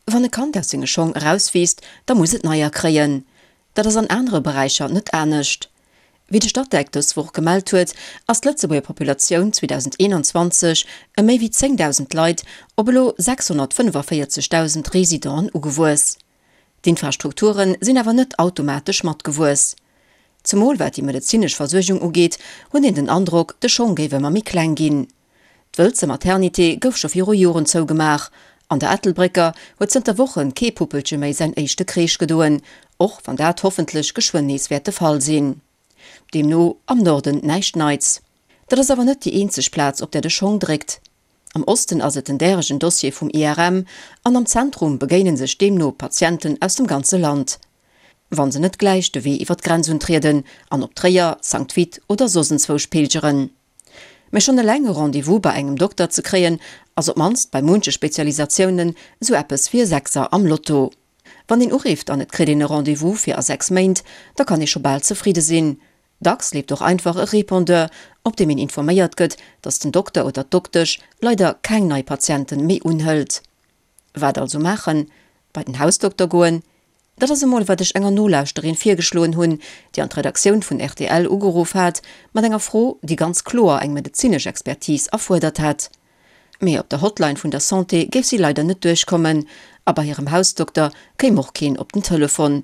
Wann e Kand aus senge Schong erauswiisst, da muss et neier kréien. Dat ass an anere Beräicher net anescht. Wéi de Statec dës Woch gemellt huet, ass d'Lëtzebuerger Populatioun 2021 ëm méi wéi 10.000 Leit op elo 645.000 Residenten ugewuess. D'Infrastrukture sinn awer net automatesch matgewuess. Zemol wat déi medezinesch Versuergung ugeet, huet een den Androck, de Schong géif ëmmer méi kleng ginn. D'Wëlzer Maternité gouf scho viru Joren zougemaach. An der Ettelbrécker huet zënter Woche kee Puppelche méi säin éischte Kreesch gedoen, och wann dat hoffentlech geschwënn nees wäert de Fall sinn. Deemno am Norden näischt Neits. Dat ass awer net déi eenzeg Plaz, op där de Schong dréckt. Am Osten ass et den däregen Dossier vum IRM an am Zentrum begéine sech deemno Patienten aus dem ganze Land. Wa se net gläich de Wee iwwer d'Grenz untrieden an op Tréier, Sankt Vith oder soss enzwousch pilgeren. Mä schonn eleng e Rendez-vous bei engem Dokter ze kréien, ass op d'mannst bei munche Spezialisatiounen esou eppes wéi e Sechser am Lotto. Wann een urifft an et kritt een e Rendez-vous fir a 6 Méint, da kann ee scho bal zefridde sinn. Dacks leeft och einfach e Répondeur, op deem een informéiert gëtt, datt den Dokter oder d'Doktesch leider keng nei Patienten méi unhëlt. Wat also maachen? Bei den Hausdokter goen? Dat ass emol wat ech enger Nolauschterin virgeschloen hunn, déi an d'Redaktioun vun rtl ugeruff hat mat enger Fro, déi ganz kloer eng medezinesch Expertise erfuerdert hätt. Mee op der Hotline vun der Santé géif si leider net duerchkommen a bei hirem Hausdokter kéim och keen op den Telefon.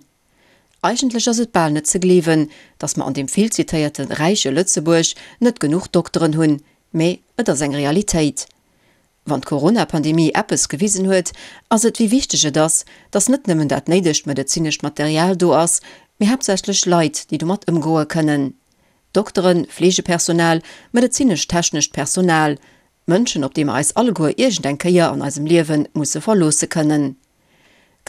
Eigentlech ass et bal net ze gleewen, datt mer an deem vill zitéierte räiche Lëtzebuerg net genuch Dokteren hunn, mee et ass eng Realitéit. Wann d'Corona-Pandemie eppes gewisen huet, ass et wéi wichteg et ass, datt net nëmmen dat néidegt medezinescht Material do ass, mee haaptsächlech Leit, déi domat ëmgoe kënnen. Dokteren, Fleegepersonal, medezinesch-technescht Personal, Mënschen, op déi mer eis alleguer iergend eng Kéier an eisem Liewe musse verloosse kënnen.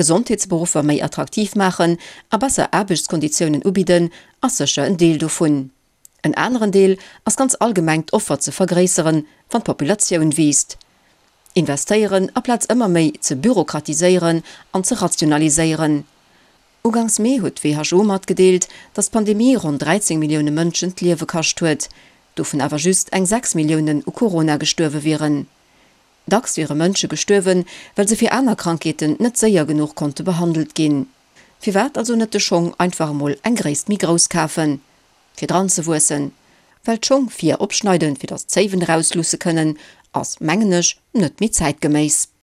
Gesondheetsberuffer méi attraktiv maachen a besser Aarbechtskonditiounen ubidden, ass sécher en Deel dovun. En aneren Deel ass ganz allgemeng d'Offer ze vergréisseren, wann d'Populatioun wiisst. Investéieren aplaz ëmmer méi ze bürokratiséieren an ze rationaliséieren. Ugangs Mee huet d'WHO matgedeelt, datt d'Pandemie ronn 13 Millioune Mënschen d'Liewe kascht huet, dovun awer just eng 6 Milliounen u Corona gestuerwe wieren. Dacks wiere Mënsche gestuerwen, well se fir aner Krankheeten net séier genuch konnte behandelt ginn. Firwat also net de Schong einfach emol eng Gréisst méi grouss kafen, fir dran ze wuessen? Well d'Schong vir opschneiden, fir dass d'Zéiwen erausluusse kënnen, ass, mengen ech, net méi zäitgeméiss.